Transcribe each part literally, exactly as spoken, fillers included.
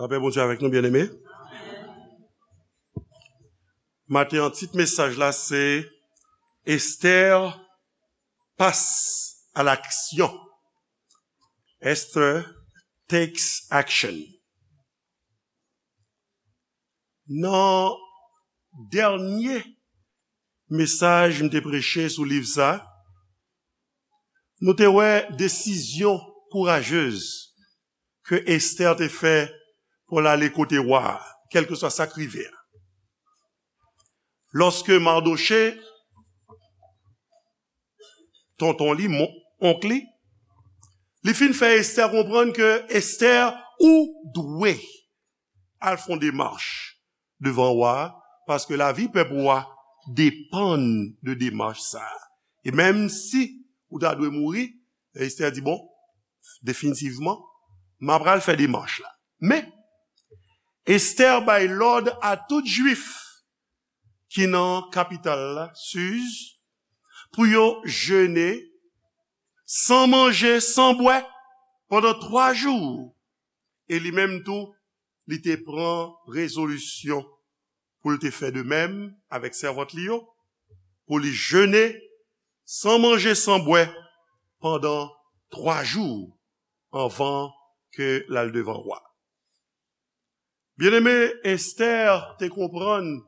Lapè Bondye avèk nou, byeneme. Maten an, tit mesaj la se Esther passe à l'action. Esther takes action. Nan dènye mesaj m te preche sou liv sa, nou te wè desizyon kourajez ke Esther te fè pou l ale kote wa a, kèlkeswa sa k rive a. Lòske Mardochée, tonton li, mon- onk li, li fin fè Esther konprann ke Esther, ou dwe al fè yon demach devan wa a, paske lavi pèp ou a depann de demach sa a. E menm si ou ta dwe mouri, Esther di, bon, definitivman, m apral fè demach la. Men, Esther bay lòd a tout Jwif ki nan kapital la, Siz, pou yo jene san manje, san bwè, pandan twa jou. E li menm tou, li te pran rezolisyon pou l te fè de menm avèk sèvant li yo, pou li jene san manje, san bwè pandan twa jou anvan ke l al devan wa. Byeneme, Esther te konprann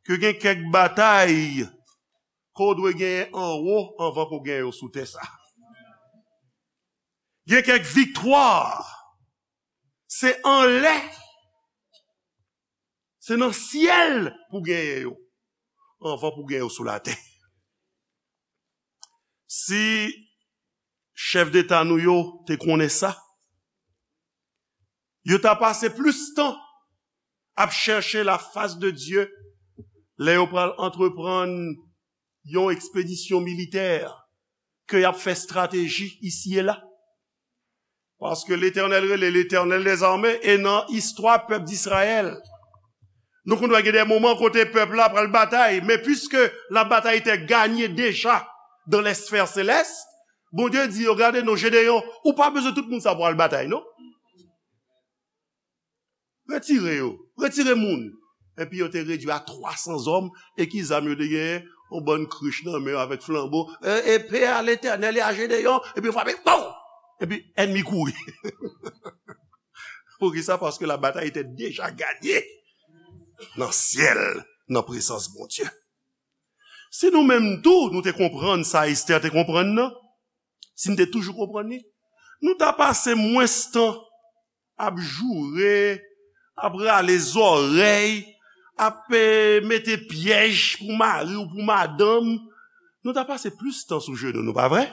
ke gen kèk batay ke w dwe genyen anwo anvan ke w genyen yo sou tè sa. Gen kèk viktwa, se anlè, se nan syèl pou genyen yo, anvan pou genyen yo sou latè. Si chèf deta nou yo te konnen sa, yo ta pase plis tan ap chèche la fas de Dye lè yo pral antreprann yon ekspedisyon militè ke y ap fè estrateji isi e la. Paske Letènèl rele Letènèl dèzame, e nan istwa pèp Dizrayèl, nou konn wè gen de moman kote pèp la pral batay, men piske la bataille était gagnée déjà dans les sphères célestes, Bondye di yo, gade non, Jedeyon, ou pa bezwen tout moun sa pou al batay, non. Retire yo. Retire moun. Epi yo te redui a twa san zòm, e ki zam yo te genyen? Yon bann krich nan men yo avèk flanbo. E, epe a Letènèl e a Jedeyon, epi yo frape, pow! Epi ènmi kouri. Poukisa? Paske la bataille était déjà gagnée nan syèl, nan prezans Bondye. Si nou menm tou, nou te konprann sa Esther te konprann nan, si n te toujou konprann li, nou ta pase mwens tan ap joure, ap rale zòrèy, ap, eh, mete pyèj pou mari w, pou madanm. Nou ta pase plis tan sou jenou, nou pa vre?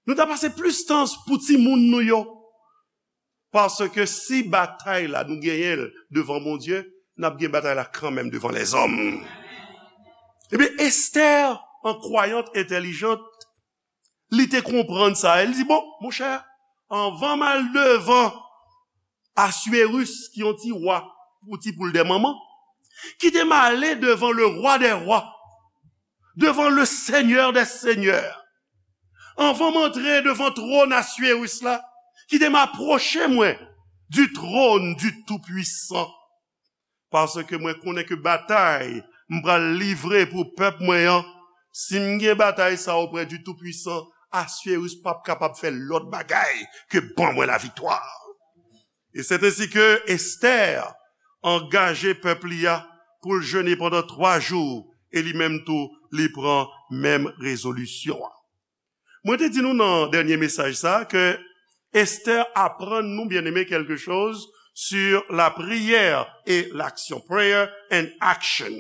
Nou ta pase plis tan pou timoun nou yo. Paske si batay la nou genyen l devan Bondye, n ap gen batay la kanmenm devan lèzòm. Ebyen, Esther, an kwayant entèlijant, li te konprann sa. E li di, bon, monchè, anvan m al devan Aswéris, ki yon ti wa, pou ti poul dè manman, kite m ale devan le roi des rois, devan le seigneur des seigneurs. Anvan m antre devan twòn Aswéris la, kite m apwoche mwen du trône du Tout-Puissant. Paske mwen konnen ke batay m pral livre pou pèp mwen an, si m gen batay sa oprè du Tout-Puissant, Aswéris p ap kapab fè lòt bagay ke ban mwen laviktwa. E c'est ainsi que Esther angaje pèp li a pou l jene pandan twa jou, e li menm tou, li pran menm rezolisyon an. Mwen te di nou nan dènye mesaj sa ke Esther aprann nou, byeneme, quelque chose sur la prière et l'action. Prayer and action.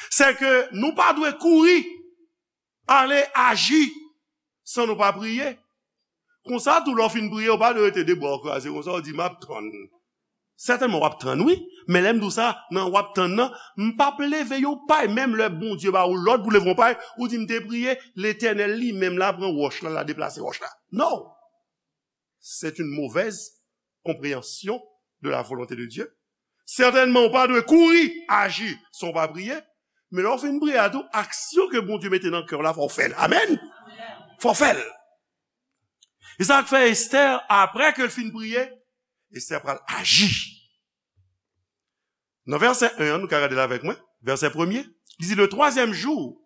Se ke nou pa dwe kouri ale aji san nou pa priye. Konsa tou, lè w fin priye, w pa dwe rete de bra w kraze konsa, w di, "M ap tann." Sètènman, w ap tann, wi. Men lè m di w sa, nan w ap tann nan, m p ap leve yon pay. Menm lè Bondye ba ou lòd pou leve yon pay, ou di, "M te priye, Letènèl li menm la pran wòch la, la deplase wòch la." Non. C'est une mauvaise compréhension de la volonté de Dieu. Sètènman, ou pa dwe kouri aji san w pa priye. Men lè w fin priye a tou, aksyon ke Bondye mete nan kè w la, fò w fè l. Amèn. Fò w fè l. E sa k fè Esther, apre ke l fin priye, Estè pral aji. Nan vèsè en an, nou ka gade l avèk mwen, vèsè premye, li di, le twazyèm jou,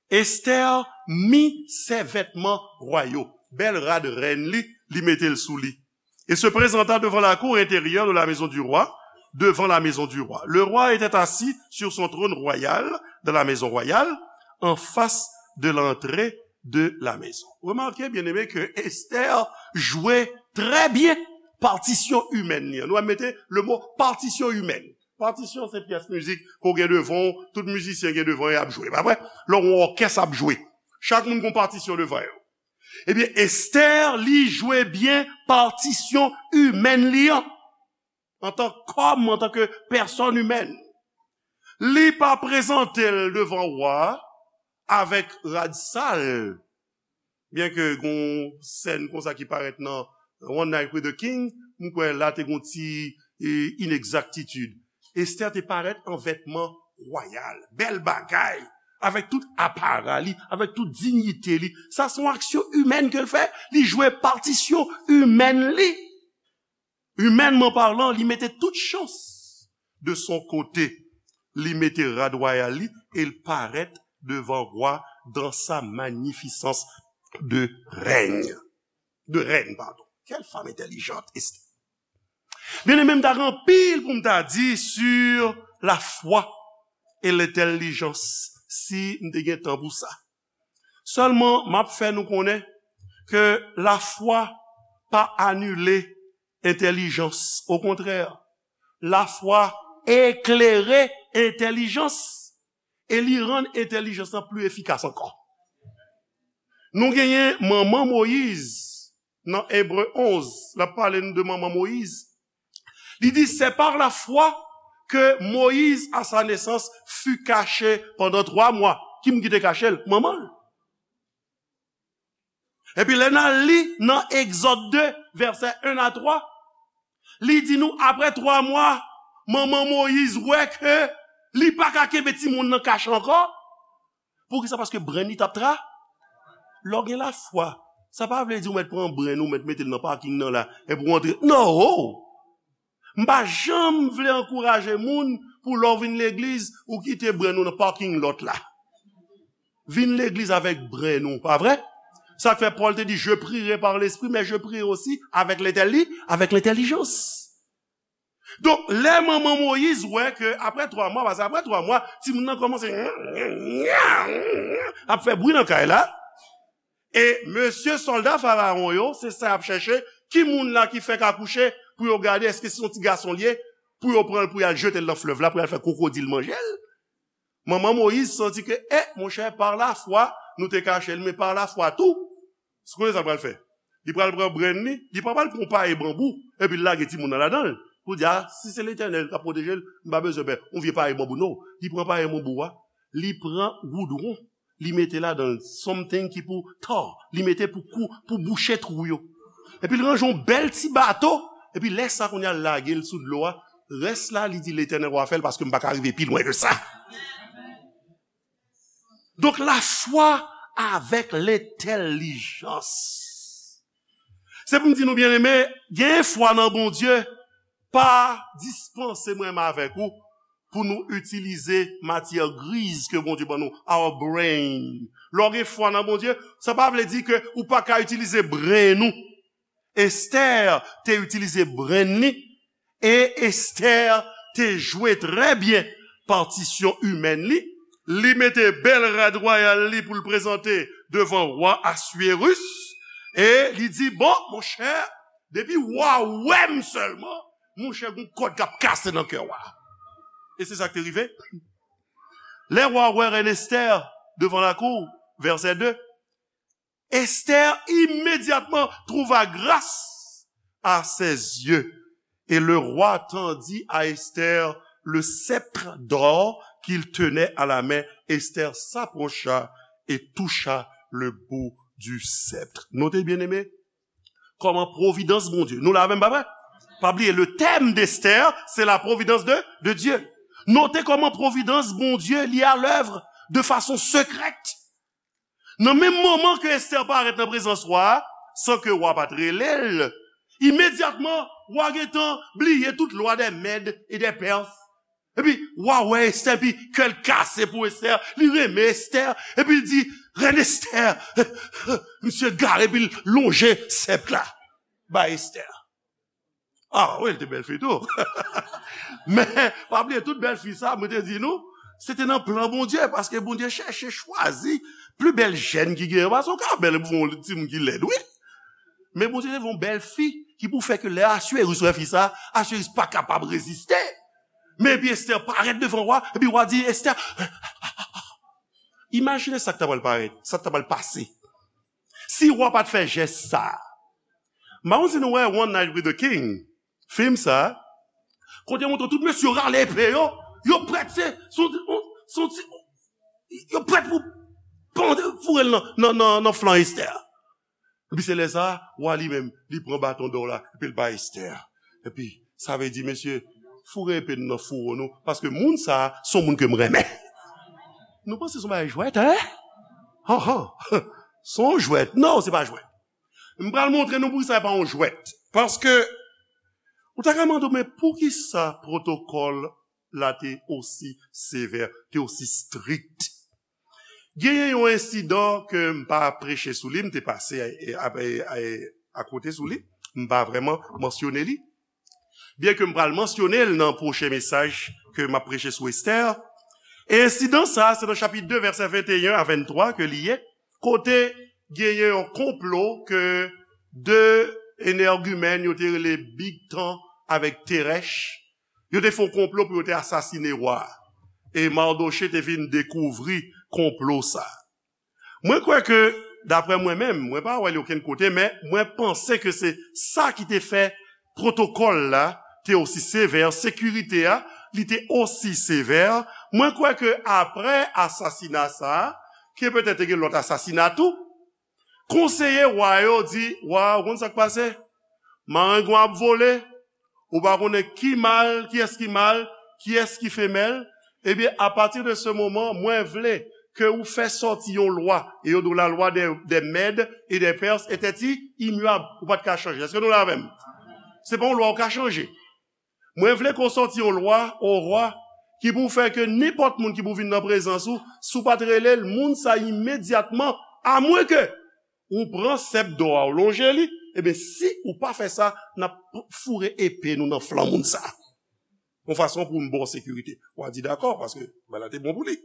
Esther mit ses vêtements royaux. Bèl rad rèn li, li mete l sou li. Et se présenta devant la cour intérieure de la maison du roi, devant la maison du roi. Le roi était assis sur son trône royal dans la maison royale, en face de l'entrée de la maison. Remarquez, bien-aimés, que Esther jouait très bien partition humaine li an. Nou mete le mot partition humaine. Patisyon se pyès mizik ke w gen devan w, tout mizisyen gen devan yo, y ap jwe, pa vre? Lè w wè yon òkès ap jwe, chak moun gen yon patisyon devan yo. Ebyen, Esther, li jwe byen patisyon imèn li an, antan kòm, antanke pèsòn imèn. Li pa prezante l devan wa a avèk rad sal, byenke gen yon sèn konsa ki parèt nan One Night with the King, m kwè la te gen yon ti, e, inegzaktitid. Estè te parèt an vètman wayal, bèl bagay, avèk tout apara li, avèk tout diyite li. Sa se yon aksyon imèn ke l fè, li jwe patisyon imèn li. Imènman palan, li mete tout chans de son kote. Li mete rad wayal li e l parèt devan wa dan sa magnificence de règne. De reine, pardon. Quelle femme intelligente, Esther. Byeneme, m ta gen anpil pou m ta di sur la foi et l'intelligence, si m te gen tan pou sa. Sèlman, m ap fè nou konnen ke lafwa pa anile entèlijans. Okontrè, lafwa eklere entèlijans e li rann entèlijans lan pli efikas ankò. Nou genyen manman Moyiz nan Ebre onz, l ap pale nou de manman Moyiz. Li di, c'est par la foi que Moïse, à sa naissance, fut caché pendant trois mois. Ki moun ki te kache l? Manman l. Epi lè n al li nan Egzòd de, vèsè en a twa, li di nou, apre twa mwa, manman Moyiz wè ke li pa ka kenbe timoun nan kache ankò. Poukisa? Paske brenn li t ap tra. Lè w gen lafwa, sa pa vle di ou mèt pran brenn ou, mèt mete l nan paking nan la, epi w antre. Non! M pa janm vle ankouraje moun pou lè w vin legliz, ou kite brenn ou nan parking lot la. Vin legliz avèk brenn ou, pa vre? Sa k fè Pòl te di, je prierai par l'esprit, mais je prierai aussi avec l'intelli-, avec l'intelligence. Donk, lè manman Moyiz wè ke apre twa mwa, paske apre twa mwa, timoun nan kòmanse ap fè bri nan kay la, e mesye sòlda Farawon yo, se sa y ap chèche, ki moun la ki fèk akouche, pou yo gade èske se yon ti gason l ye, pou yo pran l, pou y al jete l nan flèv la, pou y al fè kwokodil manje l. Manman Moyiz santi ke, eh, monchè, par la foi, nou te kache l, men par la foi tou, ou konnen sa l pral fè? Li pral pran brenn li, li pa pral pran yon paye banbou, epi l lage timoun nan ladan l. Pou di, a, si se Letènèl k ap pwoteje l, m pa bezwen pè yon vye paye banbou, non. Li pran paye banbou a, li pran goudwon, li mete ladan l something ki pou tar, li mete pou kou, pou bouche twou yo. Epi l ranje yon bèl ti bato, epi lè sa kounye a l lage l sou dlo a, rès la, li di, Letènèl w a fè l, paske m pa ka rive pi lwen ke sa. Donk, lafwa avèk lentèlijans. Se pou m di nou, byeneme, gen fwa nan Bondye pa dispanse mwen menm avèk ou pou nou itilize matyè griz ke Bondye ban nou, our brain. Lè w gen fwa nan Bondye, sa pa vle di ke ou pa ka itilize brenn ou. Estè te itilize brenn li, e Estè te jwe trè byen patisyon imèn li. Li mete bèl rad wayal li pou l prezante devan wa Aswirus, e li di, bon, monchè, depi wa wè m sèlman, monchè, gon kòd k ap kase nan kè wa. E se sa k te rive. Lè wa wè rèn Estè devan lakou, vèsè de, Esther immédiatement trouva grâce à ses yeux. Et le roi tendit à Esther le sceptre d'or qu'il tenait à la main. Esther s'approcha et toucha le bout du sceptre. Note, byeneme, kòman pwovidans Bondye. Nou la menm, pa vre? Pa bliye, le thème d'Esther, c'est la providence de, de Dieu. Note kòman pwovidans Bondye li à l'œuvre de façon secrète. Nan menm moman ke Esther parèt nan prezans wa a, san ke wa pa t rele l, Imedyatman, wa gentan bliye tout lwa dè Mèd e dè Pès. Epi, wa wè Estè, epi kè l kase pou Estè, li renmen Estè, epi l di, Rèn Estè, misye gare, epi l lonje sèp la bay Estè. Ah, wi, l te bèl fi tou. Men, pa bliye, tout bèl fi sa, mwen te di nou, se te nan plan Bondye, paske Bondye chèche chwazi pli bèl jèn ki genyen, paske w ka bèl pou yon timoun ki lèd, wi. Men Bondye te voye yon bèl fi ki pou fè ke lè Asweri wè fi sa, Asweri pa kapab reziste. Men epi Estè parèt devan wa, epi wa di Estè, imajine sa k ta pral parèt, sa k ta pral pase. Si wa pa t fè jès sa, m pa konn si nou wè One Night with the King, fim sa, kote yo montre tout mesye yo rale epe yo, yo prèt, se, se, se, se, yo prèt pou pande, foure l nan, nan, nan, nan flank Estè. Epi se lè sa, wa li menm, li pran baton dò la, epi l bay Estè. Epi, sa vle di, mesye, foure epe nou nan fouwo nou, paske moun sa, se yon moun ke m renmen. Nou panse se yon bagay jwèt, en? Han, han. Se yon jwèt. Non, se pa jwèt. M pral montre nou poukisa se pa yon jwèt. Paske, ou ta ka mande, men poukisa pwotokòl la te osi sevè, te osi strikt? Genyen yon ensidan ke m pa preche sou li, m te pase a, a, a, a, akote sou li, m pa vrèman mansyone li. Byenke m pral mansyone l nan pwochen mesaj ke m ap preche sou Estè. E ensidan sa, se nan chapit de, vèsè venteyen a venntwa ke li ye, kote genyen yon konplo ke de enègimèn yo te rele Bigtan avèk Terèch, yo te fè yon konplo pou yo te asasine wa a. E Mardoche te vin dekouvri konplo sa a. Mwen kwè ke, daprè mwen menm, mwen pa wè li okenn kote, men mwen panse ke se sa ki te fè pwotokòl la te osi sevè, sekirite a, li te osi sevè. Mwen kwè ke apre asasina sa a, ke petèt te gen lòt asasina tou, konseye wa yo di, wa, ou konn sa k pase? Marengwen ap vole, ou pa konnen ki mal, kiyès ki mal, kiyès ki femèl. Ebyen, apati de se moman, mwen vle ke ou fè sòti yon lwa, e yo di w la lwa dè, dè Mèd e dè Pès etè imyab, ou pa t ka chanje. Èske nou la avè m? Se pa yon lwa ou ka chanje. Mwen vle ke w sòti yon lwa, o wa, ki pou fè ke nenpòt moun ki pou vin nan prezans ou, si w pa t rele l, moun sa imedyatman, amwenke ou pran sèp dò a, ou lonje li, ebyen, si ou pa fè sa, n ap foure epe nou nan flank moun sa. Yon fason pou n ba w sekirite. W a di dakò, paske bagay la te bon pou li.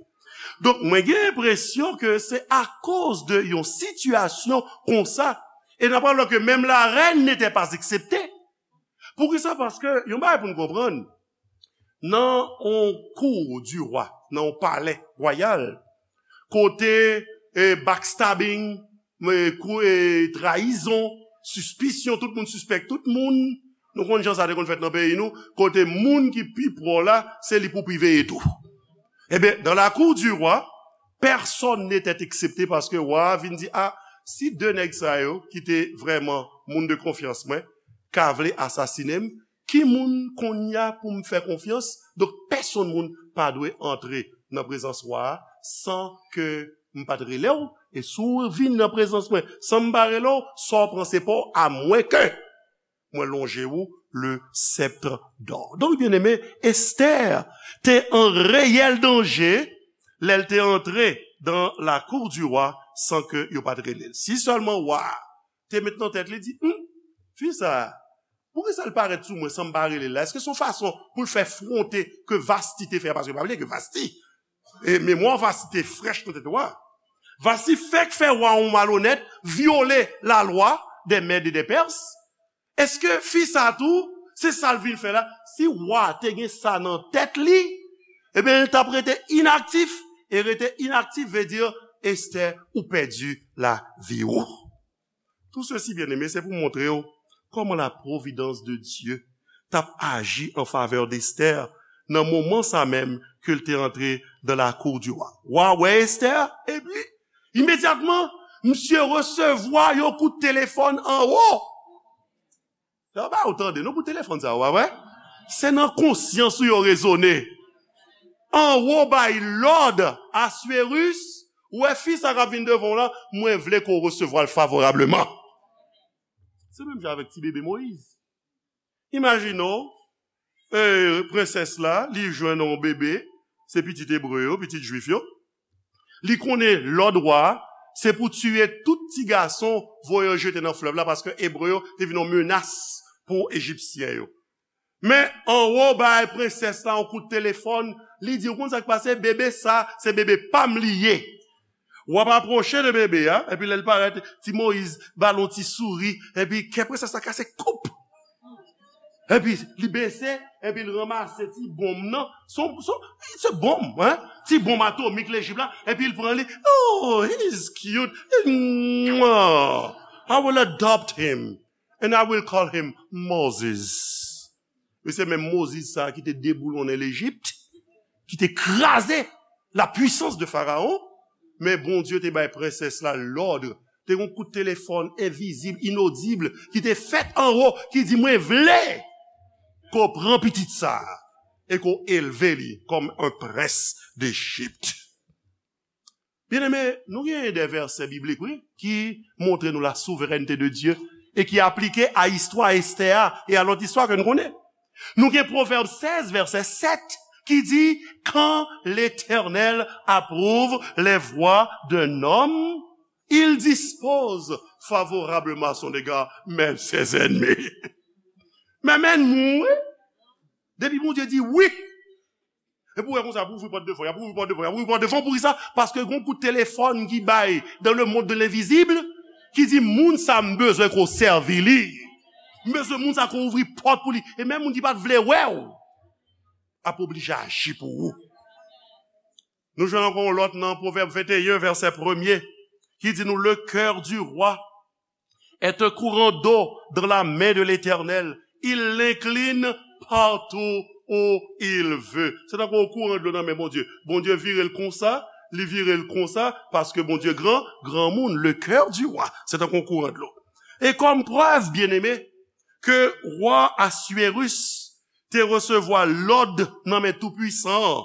Donk, mwen gen enpresyon ke se akoz de yon sitiyasyon konsa, e n ap wè ke menm la reine n'était pas exceptée. Poukisa? Paske, yon bagay pou n konprann, nan yon cour du roi, nan yon palè wayal, kote e, backstabbing, e, kou, e, trayizon, sispisyon, tout moun sispèk tout moun. Nou konn jan sa te konn fèt nan peyi nou, kote moun ki pi pwò la, se li pou pi veye tou. Ebyen, dans la cour du roi, personne n'était excepté paske wa a vin di, a, si de nèg sa yo, ki te vrèman moun de konfyans mwen, ka vle asasine m, ki moun kounye a pou m fè konfyans? Donk, pèsonn moun pa dwe antre nan prezans wa a san ke m pa t rele w. E si w vin nan prezans mwen san m pa rele w, sa w pran se pa w, amwenke mwen lonje w le sceptre d'or. Donk, byeneme, Estè te an reyèl danje lè l te antre dans la cour du roi san ke yo pa t rele l. Si sèlman wa a te met nan tèt li, di, hmm, fi sa a, poukisa l parèt sou mwen san m pa rele l la? Èske se yon fason pou l fè fwonte ke Vasti te fè a? Paske pa bliye ke Vasti, e, memwa Vasti te frèch nan tèt wa a. Vasti fèk fè wa yon malonèt, vyole lalwa dè Mèd e dè Pès. Èske fi sa a tou, se sa l vin fè la? Si wa a te gen sa nan tèt li, ebyen, l t ap rete inaktif, e rete inaktif vle di, Estè, ou pèdi lavi w. Tout sesi, byeneme, se pou montre w kòman la providence de Dieu t ap aji an favè d'Esther nan moman sa menm ke l te antre dans la cour du roi. Wa wè Esther, epi, imedyatman, misye resevwa yon kout telefòn anwo. Sa ba ou tande, non, pou telefòn sa, w a wè? Se nan konsyans ou yo rezone. Anwo bay lòd, Aswerus, ou wè fi sa k ap vin devan w la, mwen vle ke w resevwa l favorableman. Se menm jan avèk ti bebe Moyiz. Imajine w, e, prensès la, li jwenn yon bebe, se pitit ebre yo, pitit jwif yo. Li konnen lòd wa a, se pou tiye tout ti gason, voye yo jete nan flèv la, paske ebre yo te vin yon menas pou ejipsyen yo. Men anwo bay prensès la yon kout telefòn, li di, ou konn sa k pase? Bebe sa, se bebe pa m li ye. W ap apwoche de bebe a, epi lè l parèt, ti Moyiz ba l yon ti souri, epi kè prensès la kase koup. Epi li bese, epi l ranmase ti bonm nan, se yon, se yon, se bonm, hein? Ti bonm atomik Lejip la, epi l pran li. Oh, he is cute. Mwah. I will adopt him, and I will call him Moses. E se menm Moziz sa a ki te deboulonnen Lejip, ki te kraze la puissance de Pharaon, men Bondye te bay prensès la lòd. Te gen yon kout telefòn envizib, inodib, ki te fèt anwo, ki di, mwen vle ke w pran pitit sa a e ke w elve li kòm un prince d'Égypte. Byeneme, nou gen de vèsè biblik, wi, ki montre nou la souveraineté de Dieu e ki aplike a istwa Estè a e a lòt istwa ke nou konnen. Nou gen Pwovèb sèz, vèsè sèt, ki di, quand l'Éternel approuve les voies d'un homme, il dispose favorablement à son égard, mais ses ennemis. Men, men, wi. Depi Bondye di wi, epi w wè konsa, pou ouvri pòt devan, y ap ouvri pòt devan, y ap ouvri pòt devan, poukisa? Paske gon kout telefòn ki bay dans le monde de l'invisible, ki di, moun sa m bezwen ke w sèvi li. M bezwen moun sa ke w ouvri pòt pou li. E menm moun ki pa t vle wè w, ap oblije aji pou ou. Nou jwenn ankò yon lòt nan Pwovèb venteyen, vèsè premye, ki di nou, le cœur du roi est un courant d'eau dans la main de l'Éternel. Il l'incline partout où il veut. Se tankou yon kouran dlo nan men Bondye. Bondye vire l konsa, li vire l konsa, paske Bondye gran, granmoun, le cœur du roi. Se tankou yon kouran dlo. E kòm prèv, byeneme, ke wa Aswérus te resevwa lòd nan men Toupwisan an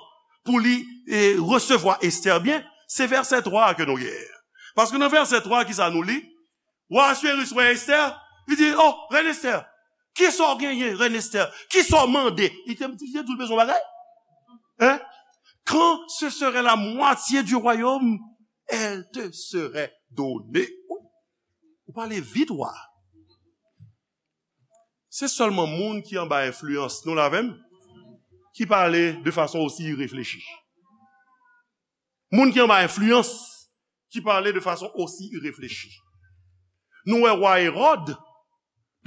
pou li, e, resevwa Estè byen, se vèsè twa a ke nou gen. Paske nan vèsè twa, kisa nou li? Wa Aswérus wè Estè, li di, oh, rèn Estè, kisa w genyen, rèn Estè? Kisa w mande? Li te, li te di l bezwen yon bagay. Hein? Quand ce serait la moitié du royaume, elle te serait donnée. Ou pale vit, wa. Se sèlman moun ki anba enfliyans, nou la avè m, ki pale de fason osi ireflechi. Moun ki anba enfliyans, ki pale de fason osi ireflechi. Nou wè wa Ewòd,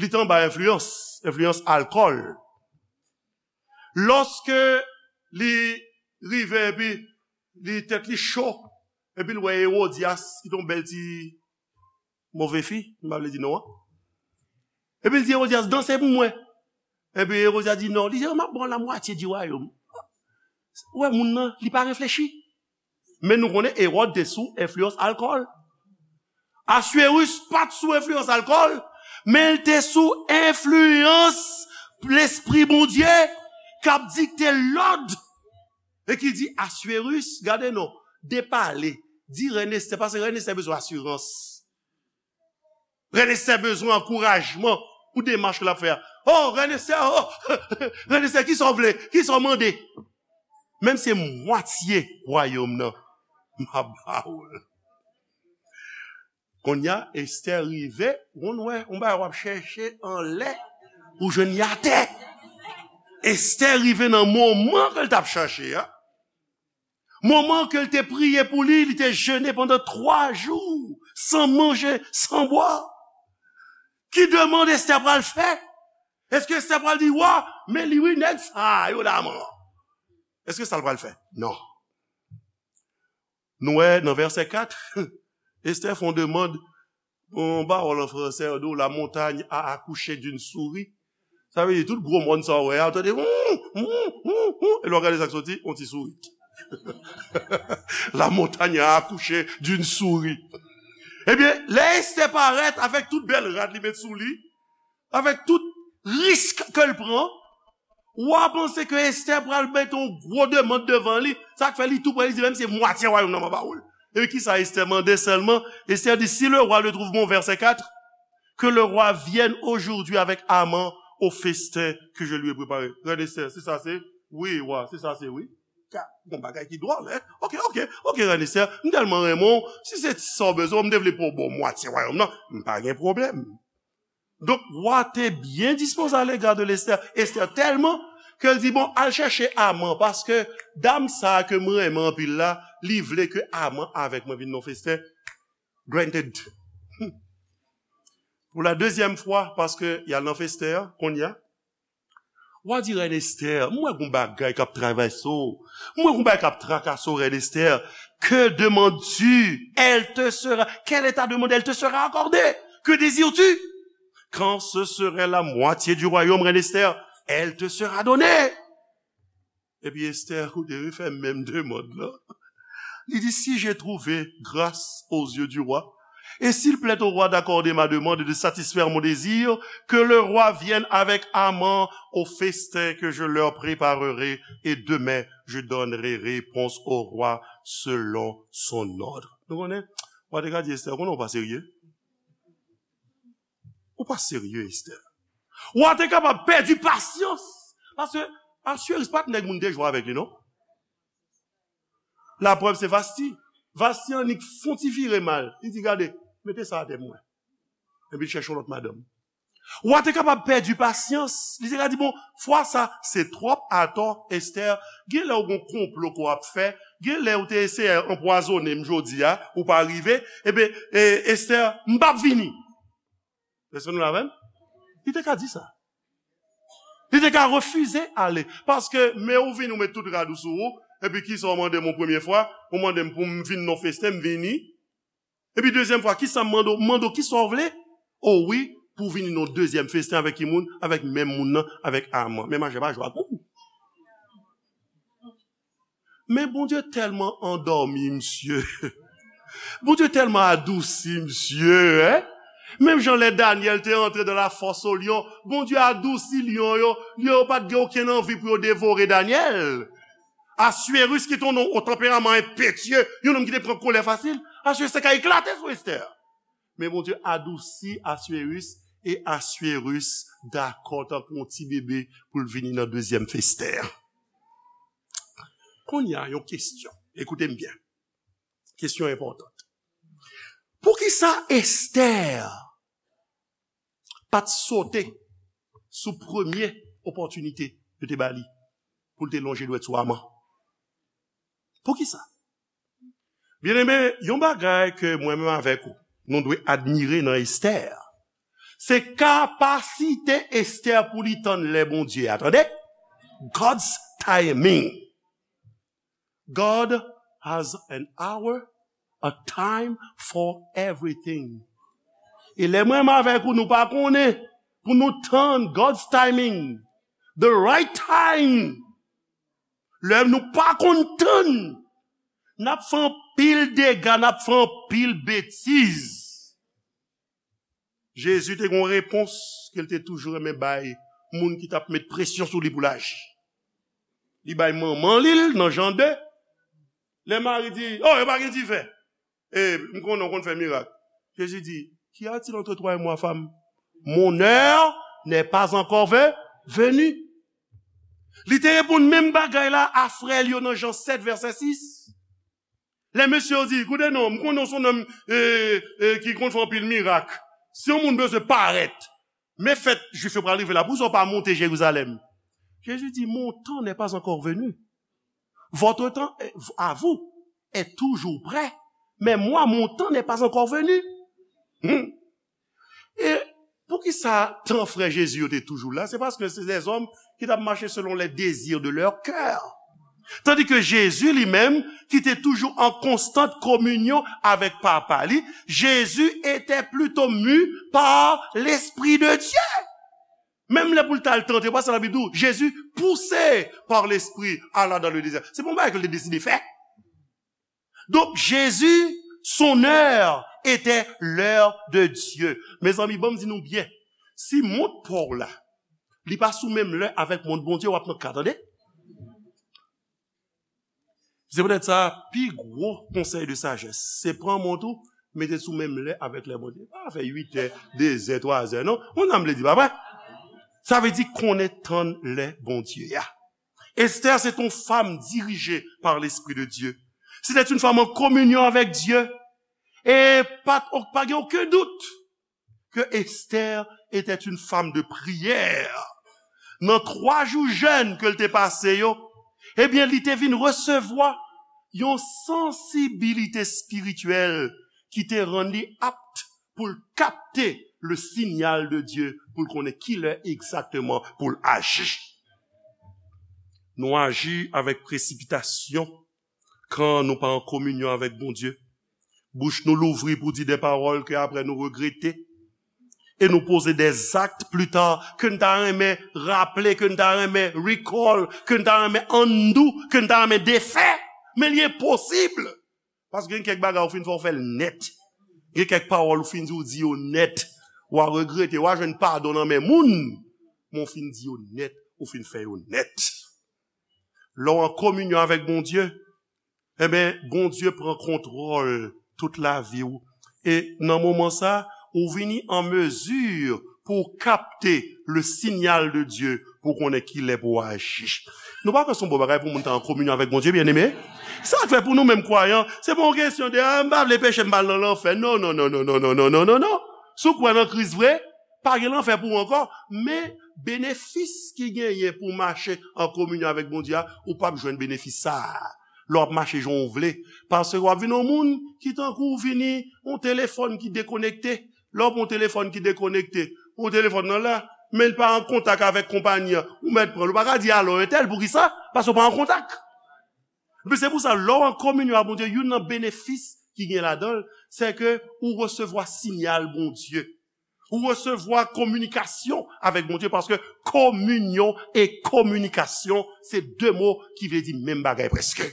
li te anba enfliyans, enfliyans alkòl. Lòske li rive epi li tèt li cho, epi l wè Ewodyas, ki te yon bèl ti move fi, m pa vle di non an. Epi l di Ewodyas, danse pou mwen. Epi Ewodyas di non. Li di, m ap ba w la mwatye di wayòm. Ou wè moun nan, li pa reflechi. Men nou konnen Ewòd te sou enfliyans alkòl. Aswérus pa t sou enfliyans alkòl, men l te sou enfliyans Lespri Bondye k ap dikte lòd e ki di Aswérus, gade non, depale, di rèn Estè, paske rèn Estè bezwen asirans. Rèn Estè bezwen ankourajman pou demach ke l ap fè a. Oh, rèn Estè, oh, rèn Estè, kisa w vle? Kisa w mande? Menm se mwatye wayòm nan, m ap ba ou l. Kounye a, Estè rive, ou konn wè, yon bagay w ap chèche anlè, ou jwenn li atè. Estè rive nan moman ke l t ap chache a. Moman ke l te priye pou li, li te jene pandan twa jou, san manje, san bwa. Ki demann Estè pral fè? Èske Estè pral di wa, men li wi nèg sa yo la man? Èske sa l pral fè? Non. Nou wè nan vèsè kat, Estè fè yon demann, yon pawòl an fransè, yo di w, la montagne a accouché d'une souris. Sa vle di tout gwo mòn sa w wè a, ou tande, hum, hum, hum, hum, e lè w gade sa k soti, yon ti sourit. La montagne a accouché d'une souris. Ebyen, lè Estè parèt avèk tout bèl rad li met sou li, avèk tout risk ke l pran, wa panse ke Estè pral mete yon gwo demann devan li, sa k fè li tou prè, li di, menm se mwatye wayòm nan m ap ba ou l. Epi kisa Estè mande sèlman? Estè di, si le roi le trouve bon, vèsè kat, Que le roi vienne aujourd'hui avec Haman au festin que je lui ai préparé. Rèn Esther, se sa se? Wi, wa, se sa se, wi. Ka, gon bagay ki dwòl, en? Ok, ok, ok, Rèn Esther, m tèlman renmen w, si se sa w bezwen, m te vle pou w ban m mwatye wayòm nan, m pa gen pwoblèm. Donk, wa te byen dispoze alega de Esther. Esther tèlman ke l di, bon, al chèche Haman, paske dam sa a ke m renmen anpil la, li vle ke Haman avèk mwen vin nan festen. Granted. Pou la dezyèm fwa, paske y al nan festen an, kounye a, wa di, Rèn Esther, m wè gon bagay k ap travèse w. M wè gon bagay k ap trakase w, Rèn Esther. Que demandes-tu? Elle te sera. Quel est ta demande? Elle te sera accordée. Que désires-tu? Quand ce serait la moitié du royaume, Rèn Esther, elle te sera donnée. Epi Esther, koute, li fè menm demann lan. Li di, si j'ai trouvé grâce aux yeux du roi, et s'il plaît au roi d'accorder ma demande et de satisfaire mon désir, que le roi vienne avec Haman au festin que je leur préparerai, et demain je donnerai réponse au roi selon son ordre. Nou konnen, wa te ka di Esther, konnen w pa serye. Ou pa serye, Esther. Wa te kapab pèdi pasyans. Paske Asyeris pa t nèg moun te jwe avèk li, non. Laprèv se Vasti. Vasti annik fon ti vire mal. Li di, gade, mete sa atè pou mwen. Epi l chèche yon lòt madanm. Wa te kapab pèdi pasyans. Li te ka di, bon, fwa sa, se twòp atò, Esther. Gen lè w gon konplo ke w ap fè. Gen lè w te eseye anpwazonnen m jodi a, ou pa rive. Ebyen, e, Esther, m p ap vini. Èske nou la avè m? Li te ka di sa. Li te ka refize ale. Paske, men ou vini, ou met tout rad ou sou ou. Epi kisa w mande m yon premye fwa? Ou mande m pou m vin nan festen, m vini. Epi dezyèm fwa, kisa m mande w? M mande w kisa w vle? O wi, pou w vini nan dezyèm festen avèk ki moun? Avèk menm moun nan, avèk Haman. Men machè pa jwe ak ou. Men Bondye tèlman andòmi misye. Bondye tèlman adousi misye, en? Menm jan lè Danyèl te antre dans la fosse aux lions, Bondye adousi lyon yo, lyon yo pa t gen okenn anvi pou yo devore Danyèl. Assuérus ki te yon nonm o tanperaman enpetye, yon nonm ki te pran kolè fasil, Assuérus te ka eklate sou Esther. Men Bondye adousi Assuérus, e Assuérus dakò tankou yon ti bebe pou l vini nan dezyèm festen an. Kounye a, yon kesyon. Ekoute m byen. Kesyon enpòtan. Poukisa Esther pa t sote sou premye opòtinite yo te ba li pou l te lonje dwèt sou Haman? Poukisa? Byeneme, yon bagay ke mwen menm avèk ou, nou dwe admire nan Esther, se kapasite Esther pou li tann lè Bondye a, tande? God's timing. God has an hour, a time for everything. E lè mwen menm avèk ou, nou pa konnen pou nou tann God's timing, the right time. Lè nou pa konn tann, n ap fè anpil dega, n ap fè anpil betiz. Jezi te gen yon repons ke l te toujou renmen bay moun ki t ap met presyon sou li pou l aji. Li bay manman li l nan Jan de. Lè Mari di, oh, yo pa gen diven. E m konnen w konn fè mirak. Jezi di, qu'y a-t-il entre toi et moi, femme? Mon heure n'est pas encore ve- venue. Li te reponn menm bagay la a frè l yo nan Jan sèt, vèsè sis. Lè mesye yo di, koute non, m konnen w se yon nonm, e, e, ki konn fè anpil mirak. Si yon moun bezwen parèt, men fèt Jwif yo pral rive la, poukisa w pa monte Jerizalèm? Jezi di, mon temps n'est pas encore venu. Votre temps est- à vous est toujours près, mais moi, mon temps n'est pas encore venu. Hmm. E poukisa tan frè Jezi yo te toujou la? Se paske se dèzòm ki t ap mache selon les désirs de leur cœur. Tandis que Jésus lui-même, qui était toujours en constante communion avec Papa li, Jésus était plutôt mu par l'Esprit de Dieu. Menm lè pou l t al tante, pa sa Labib di w, Jésus, poussé par l'Esprit, alla dans le désert. Se pa yon bagay ke l te deside fè. Donk, Jezi, son heure était l'heure de Dieu. Mezanmi, ban m di nou byen, si mont pa w la, li pa sou menm lè avèk mont Bondye, w ap nan ka, tande. Se poutèt sa, pi gwo konsèy de sajès, se pran mont ou, mete sou menm lè avèk lè Bondye. Pa fè uit è, de zè, twa zè, non. Ou nan vle di, pa vre? Sa vle di konnen tan lè Bondye a. Esther, c'est une femme dirigée par l'Esprit de Dieu. C'était une femme en communion avec Dieu. E pa, pa gen okenn dout que Esther était une femme de prière. Nan twa jou jèn ke l te pase yo, ebyen, li te vin resevwa yon sansibilite espirityèl ki te rann li apt pou l kapte le signal de Dieu, pou l konnen kilè egzakteman pou l aji. Nou aji avèk presipitasyon kan nou pa an kominyon avèk Bondye. Bouch nou louvri pou di de pawòl ke apre nou regrete. E nou poze de zak pli ta ke n ta renmen raple, ke n ta renmen recall, ke n ta renmen undo, ke n ta renmen defè. Men li enposib. Paske gen kèk bagay ou fin fè, ou fè l nèt. Gen kèk pawòl ou fin di, ou di yo nèt. W a regrete, w a jwenn padon nan men moun. Men ou fin di yo nèt, ou fin fè yo nèt. Lè w an kominyon avèk Bondye, enben, Bondye pran kontwòl tout lavi w. E nan moman sa, ou vini an mezi pou w kapte le signal de Dieu, pou w konnen kilè pou w aji. Nou pa kwè se yon bon bagay pou moun ta an kominyon avèk Bondye, byeneme? Sa k fè pou nou menm kwayan, se pa yon kesyon de, "Ah, m pa vle peche, m pa al nan lanfè." Non, non, non, non, non, non, non, non, non, non. Si w kwè nan Kris vre, pa gen lanfè pou ou ankò. Men benefis ki genyen pou w mache an kominyon avèk Bondye a, ou p ap jwenn benefis sa a lè w ap mache jan w vle. Paske w ap vin yon moun ki tankou w vini yon telefòn ki dekonekte. Lè w pran yon telefòn ki dekonekte, yon telefòn nan la, men l pa an kontak avèk konpayi an, ou mèt pran l. Ou pa ka di alo entèl, poukisa? Paske w pa an kontak. Men se pou sa, lè w an kominyon ak Bondye, youn nan benefis ki gen ladan l, se ke ou resevwa sinyal Bondye. Ou resevwa kominikasyon avèk Bondye, paske kominyon e kominikasyon, se de mo ki vle di menm bagay prèske.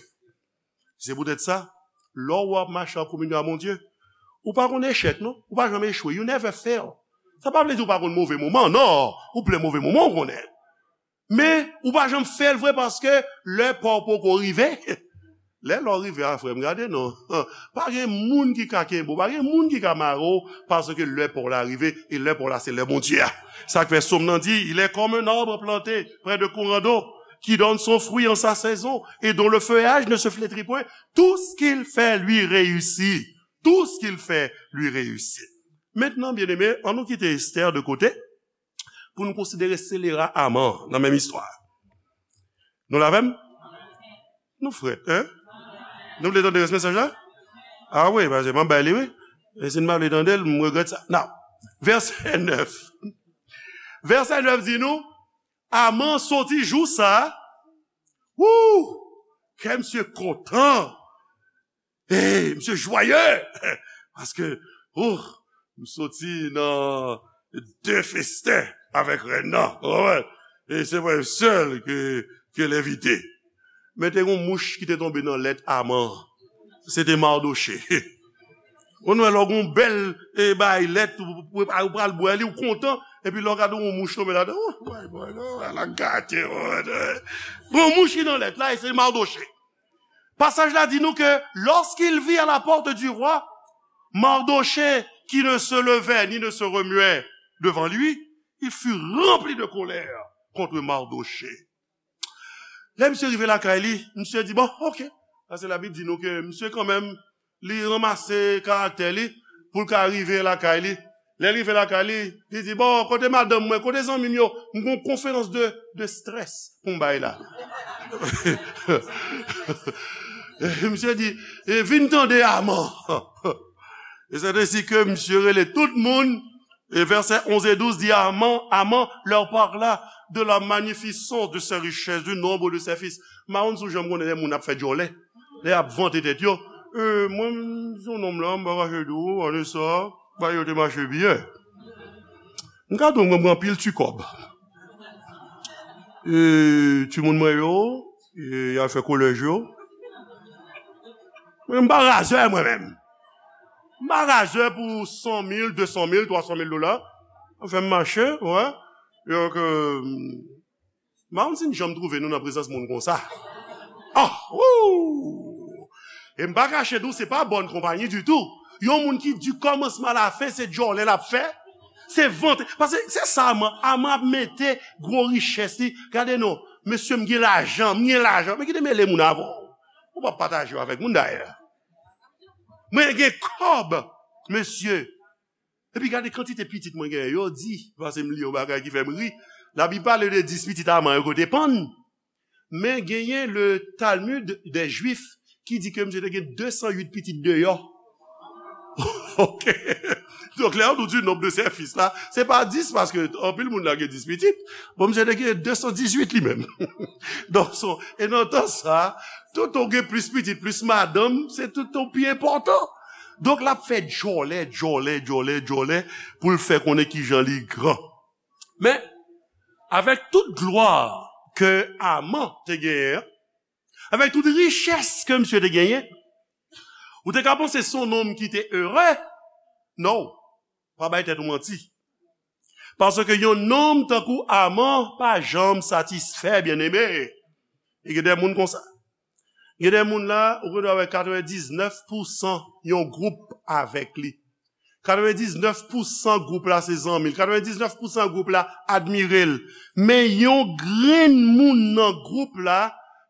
Se poutèt sa, lè w ap mache an kominyon ak Bondye, ou pa konn echèk, non. Ou pa janm echwe. You never fail. Sa pa vle di ou pa konn move moman, non. Ou plen move moman, ou konnen. Men, ou pa janm fè l vre paske lè pa w poko rive. Lè lè w rive a, frè m, gade non. Pa gen moun ki ka kenbe w, pa gen moun ki ka mare w, paske lè pa w la rive, e lè pa w la se lè Bondye a. Sa k fè Sòm nan di, il est comme un arbre planté près de courant d'eau, qui donne son fruit en sa saison, et dont le feuillage ne se flétrit point. Tout ce qu'il fait lui réussit. Tout ce qu'il fait lui réussit. Mentnan, byeneme, ann nou kite Esther de kote pou nou konsidere selera Aman nan menm istwa. Nou la avè m? Nou frèt, en? Nou vle tande rès mesaj la? A wi, paske m ap bay li, wi. E si n pa vle tande l, m regrèt sa. Now, vèsè nèf. Vèsè nèf di nou, Aman soti jou sa a, wou! Kè misye kontan. Hey, misye jwaye! Paske, oh, m soti nan de festen avèk rèn nan. Ou konprann? E se mwen sèl ke, ke l envite. Men te gen yon mouch ki te tonbe nan lèt Aman. Se te Mardochée. Ou wè lè w gen yon bèl, e, bay lèt, ou, ou, ou pral bwè li, ou kontan, epi lè w gade yon mouch tonbe ladan, oh, bay, bay, non, ala gate, oh, eh. Gen yon mouch ki nan lèt la, e se Mardochée. Pasaj la di nou ke lorsqu'il vit à la porte du roi Mardochée qui ne se levait ni ne se remuait devant lui, il fut rempli de colère contre Mardochée. Lè misye rive lakay li, misye di, bon, ok. Paske Labib di nou ke misye kanmenm, li ranmase karaktè li pou l ka rive lakay li. Lè l rive lakay li, li di, bon, kote madanm mwen, kote zanmi m yo? M gen yon konferans de, de strès pou m bay la. Misye di, e vin tande Aman. E c'est ainsi que misye rele tout moun. E vèsè onz e douz di, Aman, Aman leur parla de la magnificence de ses richesses, du nombre de ses fils. M pa konn si w janm konnen lè moun ap fè djòlè, lè y ap vante tèt yo. E, mwen, m se yon nonm la, m pa kache di w, ane sa, bagay yo te mache byen. M ka di w, mwen, m gen anpil ti kòb. E, timoun mwen yo, e, y al fè kolèj yo. Mwen, m pa razè, mwen menm. M pa razè pou san mil, de san mil, twa san mil dola. Anfen, m mache, wè. Donk, euh, m pa konn si n janm twouve nou nan prezans moun konsa. Ah, wou! E m pa kache di w, se pa bòn konpayi ditou. Yon moun ki di kòmansman a la fen, se djòlè l ap fè. Se vante. Paske se sa Aman. Aman ap mete gwo richès li. Gade non, mesye, m gen lajan, m gen lajan. Men ki te mele moun avè w? Ou p ap pataje yo avèk moun dayè. Mwen gen kòb, mesye. Epi gade kantite pitit mwen genyen. Yo di, paske m li yon bagay ki fè m ri. Labib pale de dis pitit Aman yo kote pann. Men genyen le Talmud des Juifs ki di ke misye te gen de san uit pitit deyò. Ok. Donk, lè nou di nonb de sèfis la, se pa dis, paske anpil moun la gen dis pitit. Bon, misye te gen de san dizuit li menm. Donk, so, e nan tan sa, tout ou gen plis pitit, plis madanm, se tout ou pi enpòtan. Donk, l ap fè djòlè, djòlè, djòlè, djòlè, pou l fè konnen kijan li gran. Men, avèk tout glwa ke Aman te genyen an, avèk tout richès ke misye te genyen, ou te ka panse se yon nonm ki te ere. Non, pa bay tèt ou manti. Paske yon nonm tankou Aman pa janm satisfè, byeneme. E gen de moun konsa. Gen de moun la, ou gen dwa wè katrevendiznèf pousan yon gwoup avèk li. Katrevendiznèf pousan gwoup la se zanmi l. Katrevendiznèf pousan gwoup la admire l. Men yon grenn moun nan gwoup la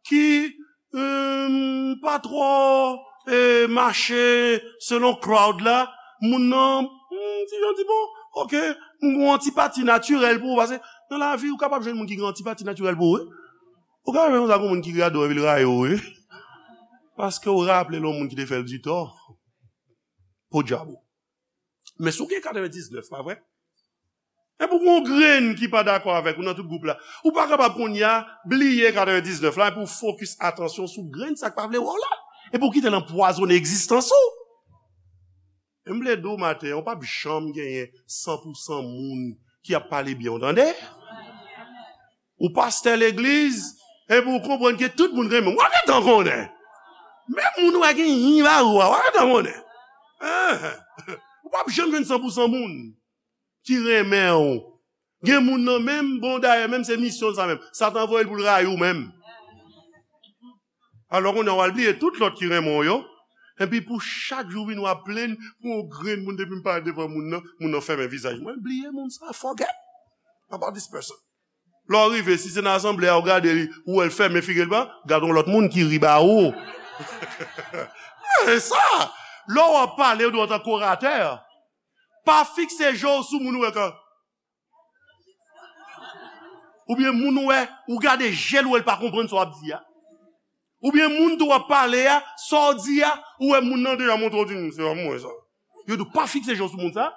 ki, hum, pa twò, eh, mache selon crowd la, moun nan, hmm, ti jan di, bon, ok, m gon antipati natirèl pou ou, paske nan lavi, ou kapab jwenn moun ki gen antipati natirèl pou ou, wi. Ou kapab jwenn konsa gon moun ki rado epi l rayi w, wi. Paske ou raple l yon moun ki te fè l di tò. Podyab ou. Men si w gen katrevendiznèf, pa vre? Epi w gen yon grenn ki pa dakò avèk ou nan tout gwoup la. Ou pa kapab kounye a bliye katrevendiznèf la epi w fokis atansyon sou grenn sa k pa vle wè w la. Epi w kite l anpwazonnen egzistans ou. E m vle di w maten an, ou p ap janm genyen san pousan moun ki ap pale byen w, tande? Ou pastè legliz, epi w konprann ke tout moun renmen w. W ap gentan konnen. Menm moun ou wè gen yin ba ou a, w ap gentan konnen. Enhen. Ou p ap janm jwenn san pousan moun ki renmen w. Gen moun nan menm, bon, dayè, menm se misyon l sa menm. Satan voye l pou l rayi w menm. Alò, kounye a, w al bliye tout lòt ki renmen w yo. Epi pou chak jou vini, w ap plenn pou yon grenn moun, depi m parèt devan moun nan, moun nan fèmen vizaj mwen. Bliye moun sa, forget about this person. Lè w rive, si se nan asanble a, w gade li, ou wè l fèmen figi l pa, gade yon lòt moun ki ri ba ou. E sa, lè w ap pale, ou dwe antanke oratè. Pa fikse je w sou moun ou wè kan. Oubyen moun ou wè, ou gade je l, ou wè l pa konprann sa w ap di a. Oubyen moun tou w ap pale a, sa w di a, ou wè moun nan deja montre w di, "M, se pa mwen sa." Yo di w pa fikse je w sou moun sa.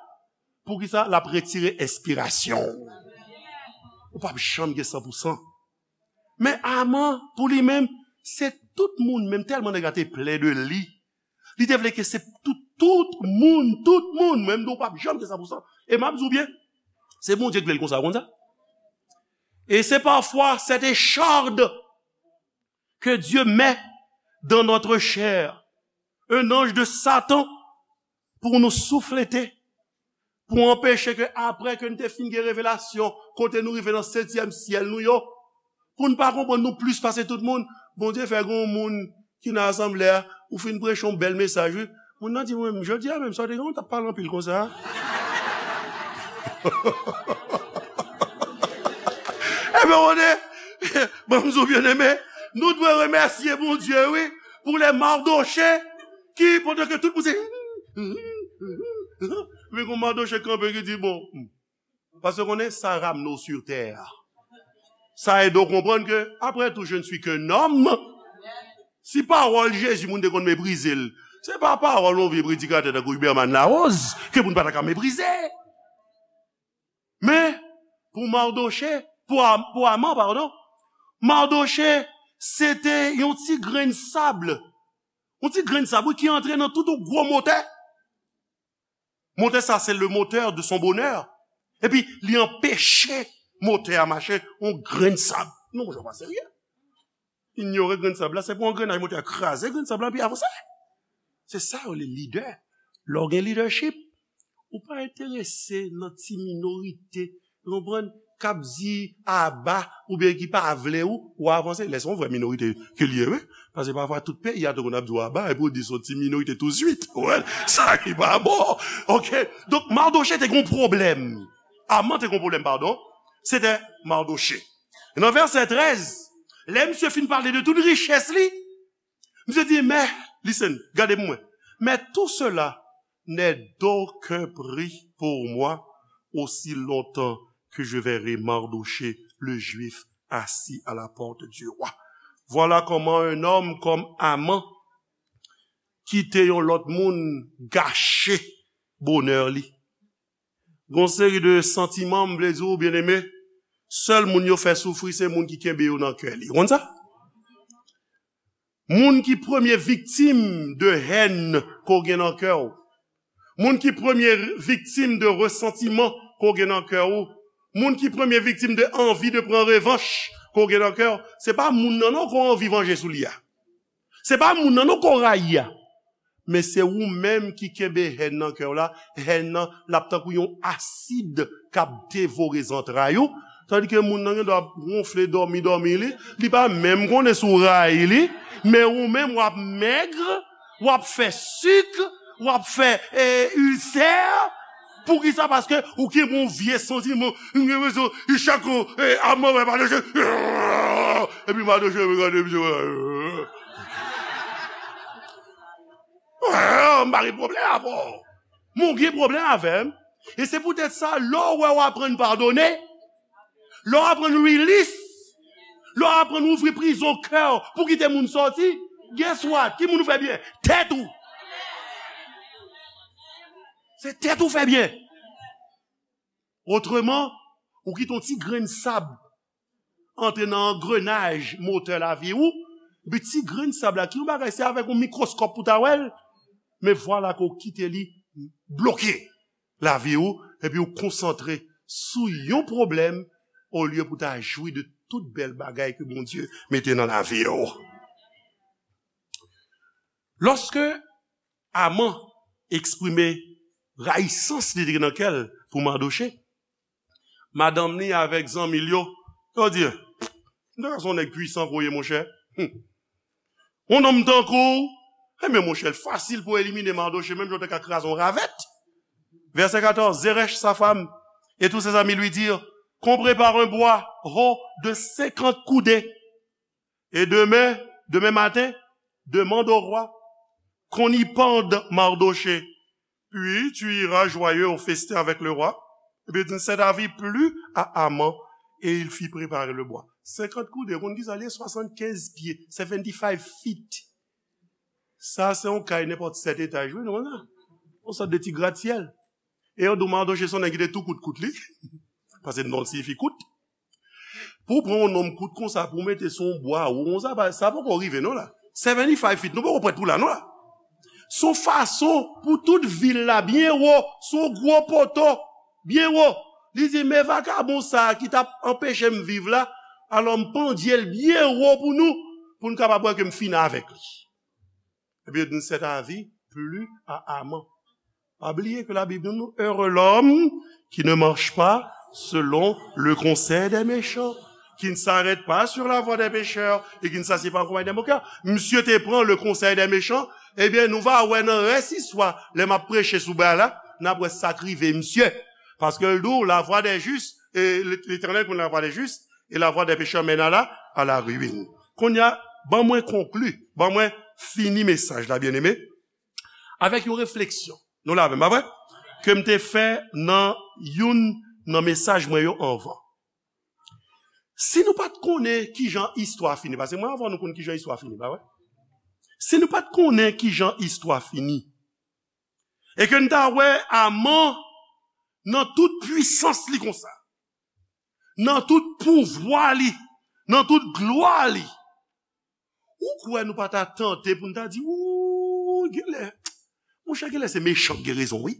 Poukisa? L ap retire enspirasyon w. Ou p ap janm gen san pousan. Men Aman, pou li menm, se tout moun, menm tèlman nèg la te plè de li, li te vle ke se tout, tout moun, tout moun, menm nou p ap janm gen san pousan. E m ap di w byen, se Bondye ki vle l konsa, ou konn sa? Et c'est parfois cette écharde que Dieu met dans notre chair, un ange de Satan, pou nou souflete, pou anpeche ke apre ke n te fin gen revelasyon, kote nou rive nan setyèm syèl nou yo, pou n pa konprann nou plis pase tout moun, Bondye fè gen yon moun ki nan asanble a, ou fin preche yon bèl mesaj, wi. Moun nan di, "Mwen, jodi a menm, sa w te gen, w t ap pale anpil konsa a." Ebyen, ou konnen, ban m di w, byeneme, nou dwe remèsye Bondye, wi, pou lè Mardochè, ki, pandan ke tout moun se, men gon Mardochè kanpe ki di, bon, paske konnen sa ramne w sur terre. Sa ede w konprann ke, après tout, je ne suis qu'un homme. Si pawòl Jezi moun te konn meprize l, se pa pawòl yon vye predikatè tankou Huberman Larose ke moun pa ta ka meprize. Men, pou Mardochè, pou Am-, pou Aman, padon, Mardochè, se te yon ti grenn sab. Yon ti grenn sab, wi, ki antre nan tout yon gwo motè. Motè sa, se le moteur de son bonheur. Epi, li anpeche motè a mache, yon grenn sab. Non, monchè, pa serye. Inyore grenn sab la, se pou yon grenn motè a kraze grenn sab la, epi avanse. Se sa yo rele lidè. Lè w gen leadership, ou pa enterese nan ti minorite, ou konprann? k ap di aba, oubyen ki pa vle ou, ou avanse. Lè se yon vrè minorite ke l ye, wi. Paske pafwa tout peyi a tou konn ap di w aba, epi w di se yon ti minorite touswit. Ou wè, sa ki pa bon. Oke? Donk, Mardoche te gen yon pwoblèm. Aman te gen yon pwoblèm, padon. Se te Mardoche. E nan vèsè trèz, lè misye fin pale de tout richès li, misye di, mais, listen, gade pou mwen. Mais tout cela n'est d'aucun prix pour moi aussi longtemps que je verrai Mardochée, le Juif, assis à la porte du roi. Voilà comment un homme comme Aman kite yon lòt moun gache bonè li. Gon seri de santiman, m vle di w, byeneme, sèl moun yo fè soufri, se moun ki kenbe yo nan kè li. Ou konn sa? Moun ki premye viktim de hèn ke w gen nan kè w. Moun ki premye viktim de resantiman ke w gen nan kè w. Moun ki premye viktim de anvi de pran revanch ke w gen nan kè w. Se pa moun nan non ke w anvi vanje sou li a. Se pa moun nan non ke w rayi a. Men se ou menm ki kenbe hèn nan kè w la. Hèn nan, l ap tankou yon asid k ap devore zantray ou. Tandike moun nan gen dwa ap wonfle, dòmi, dòmi li. Li pa menm konnen si w rayi li. Men ou menm, w ap mèg, w ap fè sik, w ap fè, e, ilsè. Poukisa? Paske ou gen yon vye santiman. Ou gen rezon. E chak, e, Aman wè Madoche. Epi Madoche regade misye. M pa gen pwoblèm avè w. Men w gen pwoblèm avè m. E se poutèt sa, lè w wè w aprann padone, lè w aprann release, lè w aprann ouvri prizon kè w pou kite moun sòti, guess what? Ki moun ou fè byen? Tèt ou. Se tèt ou fè byen. Otreman, ou kite yon ti grenn sab antre nan angrenaj motè lavi ou, epi ti grenn sab la, ki yon bagay, se avèk yon mikwoskòp pou ta wè l, men vwala ke w kite li bloke lavi ou, epi w konsantre sou yon pwoblèm, olye pou ta jwi de tout bèl bagay ke Bondye mete nan lavi ou. Lòske Aman eksprime rayisans li te gen nan kè l pou Madoche, madanm li avèk zanmi l yo, yo di, "M ta ka se yon nèg pwisan ke w ye, monchè. Yon nonm tankou w, enben, monchè, l fasil pou elimine Madoche, menm jan w te ka kraze yon ravèt." Verset quatorze, Zeresh, sa femme, et tous ses amis lui dirent, "Qu'on prépare un bois haut de cinquante coudées." Et demain, demain matin, demande au roi qu'on y pende Mardochée. Puis tu iras joyeux au festin avec le roi. Et puis il ne s'est avis plus à Aman et il fit préparer le bois. Cinquante coudées, ou konn ki sa l ye? Swasann kenz pye, seventy-five feet. Sa se yon kay nenpòt sèt etaj, wi, nou konn sa. Yon sòt de ti gratsyèl. E yo di w Madoche se yon nèg ki te tou kout kout li. Paske non l siyifi kout. Pou w pran yon nonm kout konsa, pou w mete sou yon bwa wo konsa, pa, sa poko rive non la. Seventy-five feet, nou poko prèt pou la non la. Se yon fason pou tout vil la byen wo, se yon gwo poto, byen wo. Li di, men vakabon sa a ki t ap anpeche m viv la, alò m pandye l byen wo pou nou, pou n kapab wè ke m fini avèk li. Epi yo di, ne s'est avis plus à Aman. Pa bliye ke Labib di nou, heureux l'homme qui ne marche pas selon le conseil des méchants, qui ne s'arrête pas sur la voie des pécheurs et qui ne s'assied pas en compagnie des moqueurs. Misye te pran le conseil des méchants, ebyen, nou va wè nan rès istwa, lè m ap preche sou bagay la, n ap wè sa k rive misye. Paske l di w, la voie des justes, et l'Éternel connaît la voie des justes, et la voie des pécheurs mène à la, à la ruine. Kounye a, ban mwen konkli, ban mwen fini mesaj la, byeneme, avèk yon refleksyon. Nou la avè m, pa vre? Ke m te fè nan youn nan mesaj mwen yo anvan. Si nou pa t konnen kijan istwa fini, paske mwen anvan nou konn kijan istwa fini, pa vre? Si nou pa t konnen kijan istwa fini, e ke n ta wè Aman nan tout pwisans li konsa, nan tout pouvwa li, nan tout glwa li, ou kwè nou pa ta tante pou n ta di, "Wouy, genlè, monchè, genlè se mechan k gen rezon, wi"?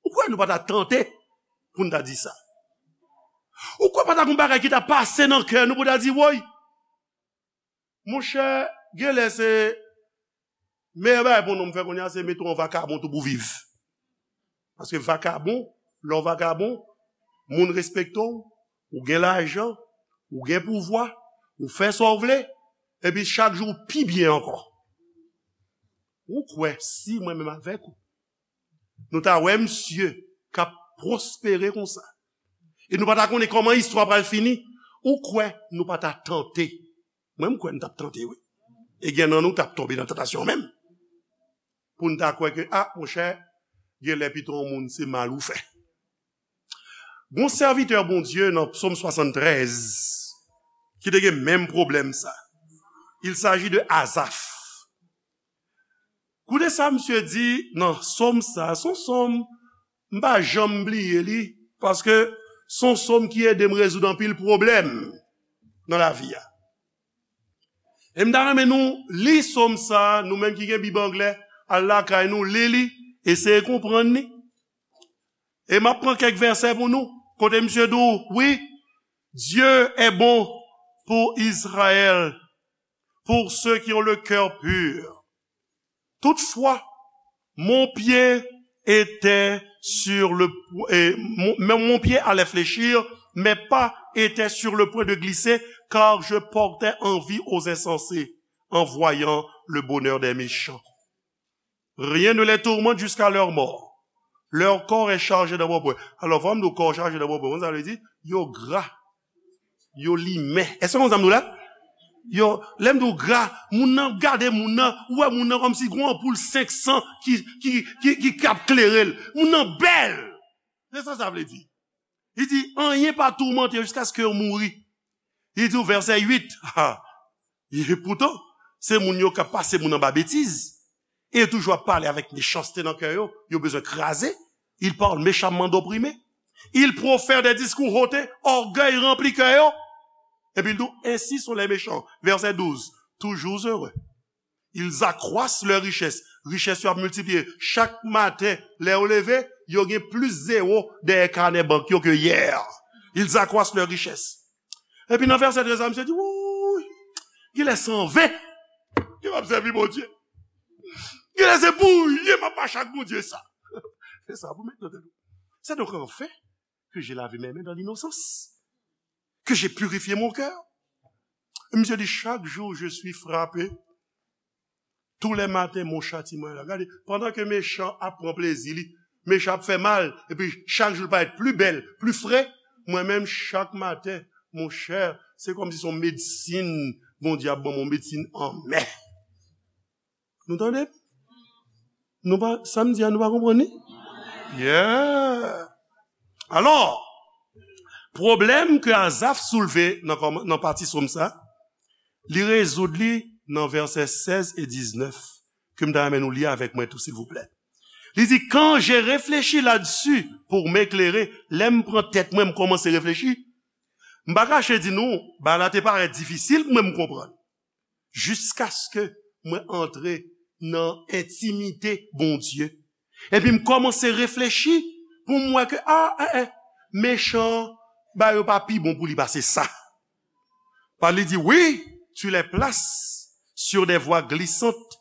Ou kwè nou pa ta tante pou n ta di sa? Ou kwè pa ta gon bagay ki ta pase nan kè nou pou ta di, "Woy, monchè, genlè se meyè bagay pou yon nonm fè kounye a, se mete w an vakabon tou pou viv"? Paske vakabon, lè w vakabon, moun respekte w, ou gen lajan, ou gen pouvwa, ou fè sa w vle, epi chak jou ou pi byen ankò. Ou kwè si mwen menm avèk ou, nou ta wè misye k ap pwospere konsa, e nou pa ta konnen kòman istwa pral fini, ou kwè nou pa ta tante? Mwen, m kwè n t ap tante, wi. E gen nan nou k t ap tonbe nan tantasyon menm. Pou n ta kwè ke, a, monchè, genlè pito yon moun se mal ou fè. Gon sèvitè Bondye nan Psòm swasanntrèz ki te gen menm pwoblèm sa. Il s'agit de Azaf. Koute sa misye di nan sòm sa. Se yon sòm, m pa janm bliye li, paske se yon sòm ki ede m rezoud anpil pwoblèm nan lavi a. E m ta renmen nou li sòm sa, nou menm ki gen Bib anglè, al lakay nou, li li, eseye konprann li. E m ap pran kèk vèsè pou nou, kote misye di w, wi, Dieu est bon pour Israël, pour ceux qui ont le cœur pur. Toutefois, mon pied était sur le, et mon, mais mon pied allait fléchir, mes pas étaient sur le point de glisser, car je portais envie aux insensés en voyant le bonheur des méchants. Rien ne les tourmente jusqu'à leur mort. Leur corps est chargé d'embrumes. Alò, fò m di w kò chaje d'embrumes, sa vle di, yo gra, yo limen. Èske w konn sa m di w la? Yo, lè m di w gra, moun nan gade moun nan, ou wè moun nan kòmsi gon anpoul senk san ki, ki, ki, ki, k ap klere l. Moun nan bèl. Se sa sa vle di. Li di, anyen pa toumante yo jiskaske yo mouri. Li di w vèsè uit, ha, e poutan, se moun yo k ap pase moun anba betiz, e yo toujou ap pale avèk mechanste nan kè yo, yo bezwen kraze. Ils parlent méchamment d'opprimés. Ils profèrent des discours hautain, ògèy ranpli kè yo. Epi l di w, ainsi sont les méchants. Vèsè douz, toujours heureux. Ils accroissent leur richesse. Richès yo ap miltipliye. Chak maten, lè yo leve, yo gen plis zewo dèyè kanè bank yo ke yè. Ils accroissent leur richesse. Epi nan vèsè trèz la, misye di, wouy, genlè se an ven ke m ap sèvi Bondye. Genlè se pou ryen m ap mache ak Bondye sa. Se sa pou met nan tèt ou. C'est donc en vain que j'ai lavé mes mains dans l'innocence, que j'ai purifié mon cœur. Misye di, chaque jour je suis frappé. Tous les matins, mon châtiment est là. Gade, pandan ke mechan ap pran plezi li, mechan ap fè mal, epi chak jou l parèt pli bèl, pli fre, mwen menm, chak maten, monchè, se kòmsi se yon medsin Bondye ap ban mwen, yon medsin anmè. Nou tande? Nou pa, sa m di a, nou pa konprann li? Yeah! Alò, pwoblèm ke Azaf soulve nan kòman-, nan pati sòm sa, li rezoud li nan vèsè sèz e diznèf, ke m ta renmen nou li avèk mwen tou, silvouplè. Li di, quand j'ai réfléchi là-dessus pour m'éclairer, lè m pran tèt mwen, m kòmanse reflechi, m pa kache di nou, bagay la te parèt difisil pou mwen m konprann. Jiskaske mwen antre nan entimite Bondye. Epi m kòmanse reflechi pou m wè ke, a, en, en, mechan, bagay yo pa pi bon pou li pase sa. Pale li di, oui, tu les places sur des voies glissantes,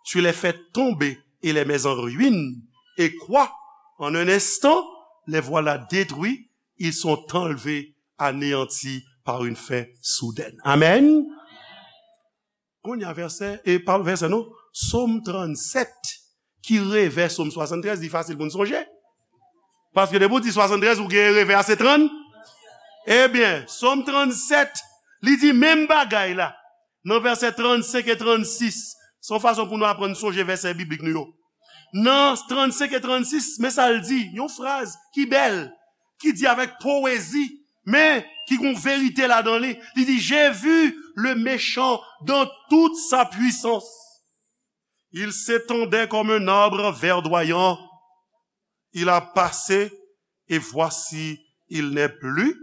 tu les fais tomber et les mets en ruine. Et quoi? En un instant, les voilà détruits, ils sont enlevés, anéantis par une faim soudaine. Amen. Kounye a vèsè, e pa vèsè non, Sòm trannsèt, ki revè Sòm swasanntrèz, li fasil pou n sonje. Paske depi w di swasanntrèz, ou gen revè a se trann. Ebyen, Sòm trannsèt, li di menm bagay la. Nan vèsè trannsenk e trannsis, se yon fason pou nou aprann sonje vèsè biblik nou yo. Nan trannsenk e trannsis, men sa l di, yon fraz ki bèl, ki di avèk powezi, men ki gon verite ladan li. Li di, j'ai vu le méchant dans toute sa puissance. Il s'étendait comme un arbre verdoyant. Il a passé, et voici, il n'est plus.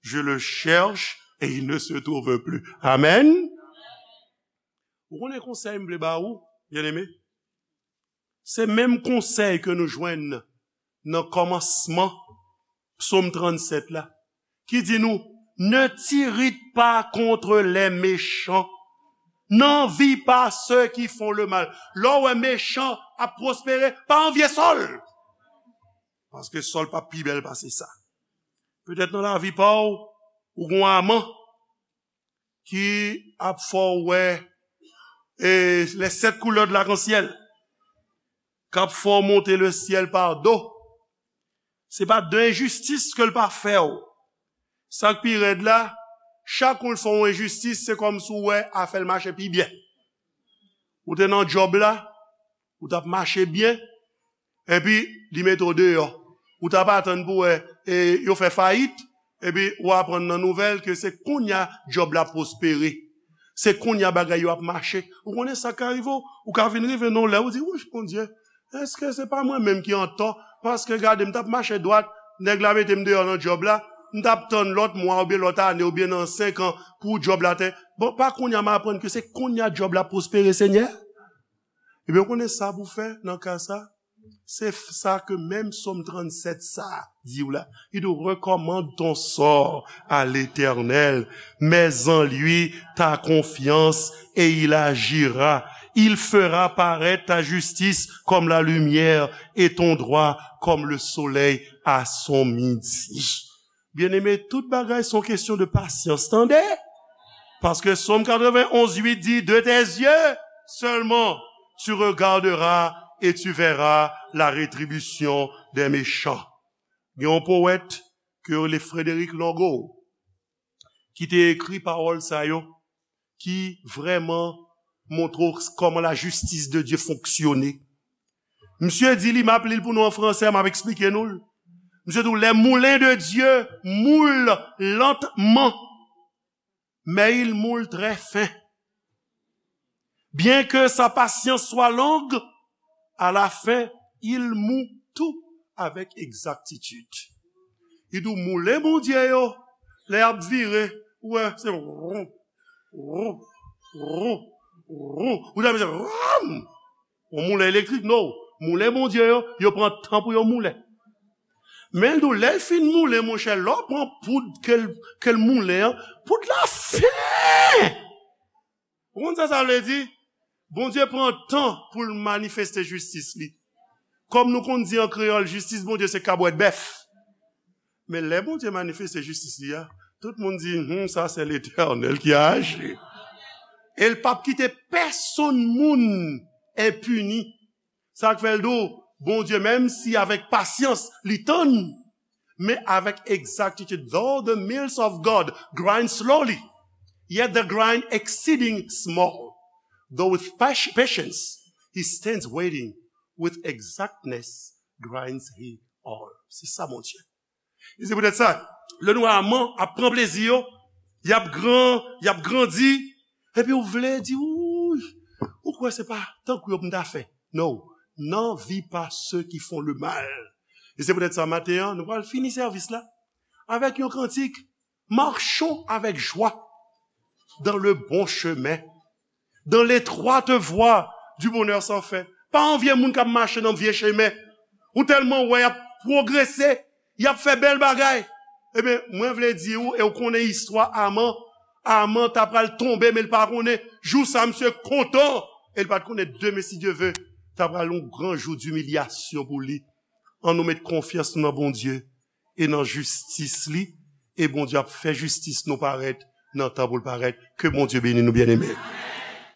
Je le cherche, et il ne se trouve plus. Amen. Ou konnen konsèy m vle ba ou, byeneme? Se menm konsèy ke nou jwenn nan kòmansman Psòm trannsèt la, ki di nou, ne t'irrite pas contre les méchants. N'envie pas ceux qui font le mal. Lè w wè mechan ap pwospere, pa anvye sa l. Paske sa l p ap pi bèl pase sa. Petèt nan lavi pa w, ou gen yon Aman ki ap fè w wè e, les sept couleurs de l'arc-en-ciel, k ap fè w monte le syèl pa do. Se pa de enjistis ke l pa fè w. Sa k pi rèd la, chak ou l fè w enjistis, se kòmsi w wè afè l mache pi byen. Ou te nan djòb la, ou t ap mache byen, epi li mete w deyò. Ou t ap atann pou wè e, yo fè fayit, epi ou aprann nan nouvèl ke se kounye a djòb la pwospere. Se kounye a bagay yo ap mache. Ou konnen sa ka rive w? Ou ka vin rive nan yon lè, ou di, "Wouch, Bondye, èske se pa mwen menm ki antò? Paske gade, m t ap mache dwat, nèg la mete m deyò nan djòb la, m t ap tann lòt mwa oubyen lòt ane oubyen nan senk an pou djòb la te. Bon, pa kounye a m aprann ke se kounye a djòb la pwospere, Senyè?" Ebyen, ou konnen sa pou fè nan ka sa? Se f- sa ke menm Sòm trannsèt sa di w la. Il nous recommande ton sort à l'Éternel, mets en lui ta confiance et il agira. Il fera paraître ta justice comme la lumière et ton droit comme le soleil à son midi. Byeneme, tout bagay se yon kesyon de pasyans, tande? Paske Sòm katrevenn onz uit di, de tes yeux seulement, tu regarderas et tu verras la rétribution des méchants. Gen yon powèt ke yo rele Frederick Logo ki te ekri pawòl sa yo, ki vrèman montre w kòman la justice de Dieu fonksyone. Misye di li, m ap li l pou nou an fransè, m ap eksplike nou l. Misye di w, les moulins de Dieu moulent lentement, mais ils moulent très fin. Bien que sa patience soit longue, à la fin, il moud tout avec exactitude. Li di w, moulen Bondye yo, lè y ap vire, ou wè, se ron, ron, ron, ron. Ou ta mèt se ron. Yon moulen elektrik, no. Moulen Bondye yo, yo pran tan pou yo moulen. Men l di w, lè l fin moulen, monchè, lè w pran poud ke l, ke l moulen an, poud la fen! Ou konn sa sa vle di? Bondye pran tan pou l manifeste jistis li. Kòm nou konn di an kreyòl, jistis Bondye se kabwèt bèf. Men lè Bondye manifeste jistis li a, tout moun di, hmm, sa se Letènèl ki aji. E l p ap kite pèsonn moun enpini. Sa k fè l di w, Bondye, menm si avèk pasyans li tann, men avèk egzaktitid. Though the mills of God grind slowly, yet they grind exceeding small. Though with pas- patience he stands waiting, with exactness grinds he all. Se sa Bondye. E se poutèt sa, lè nou wè Aman ap pran plezi yo, y ap gran, y ap grandi, epi ou vle di, ou, ou kwè se pa tankou yo pou m ta fè. No, n'envie pas ceux qui font le mal. E se poutèt sa, maten an, nou pral fini sèvis la avèk yon kantik, marchons avec joie dans le bon chemin, dans l'étroite voie du bonheur sans fin. Pa anvye moun k ap mache nan vye chemen. Ou tèlman wè y ap pwogrese, y ap fè bèl bagay. Ebyen, mwen vle di w, e w konnen istwa Aman. Aman ta pral tonbe, men l pa konnen. Jou sa, misye kontan. E l pa t konnen demen, si Dye ve, ta pral yon gran jou dimilyasyon pou li. Ann nou met konfyans nou nan Bondye e nan jistis li. E Bondye ap fè jistis nou parèt nan tan pou l parèt. Ke Bondye beni nou, byeneme.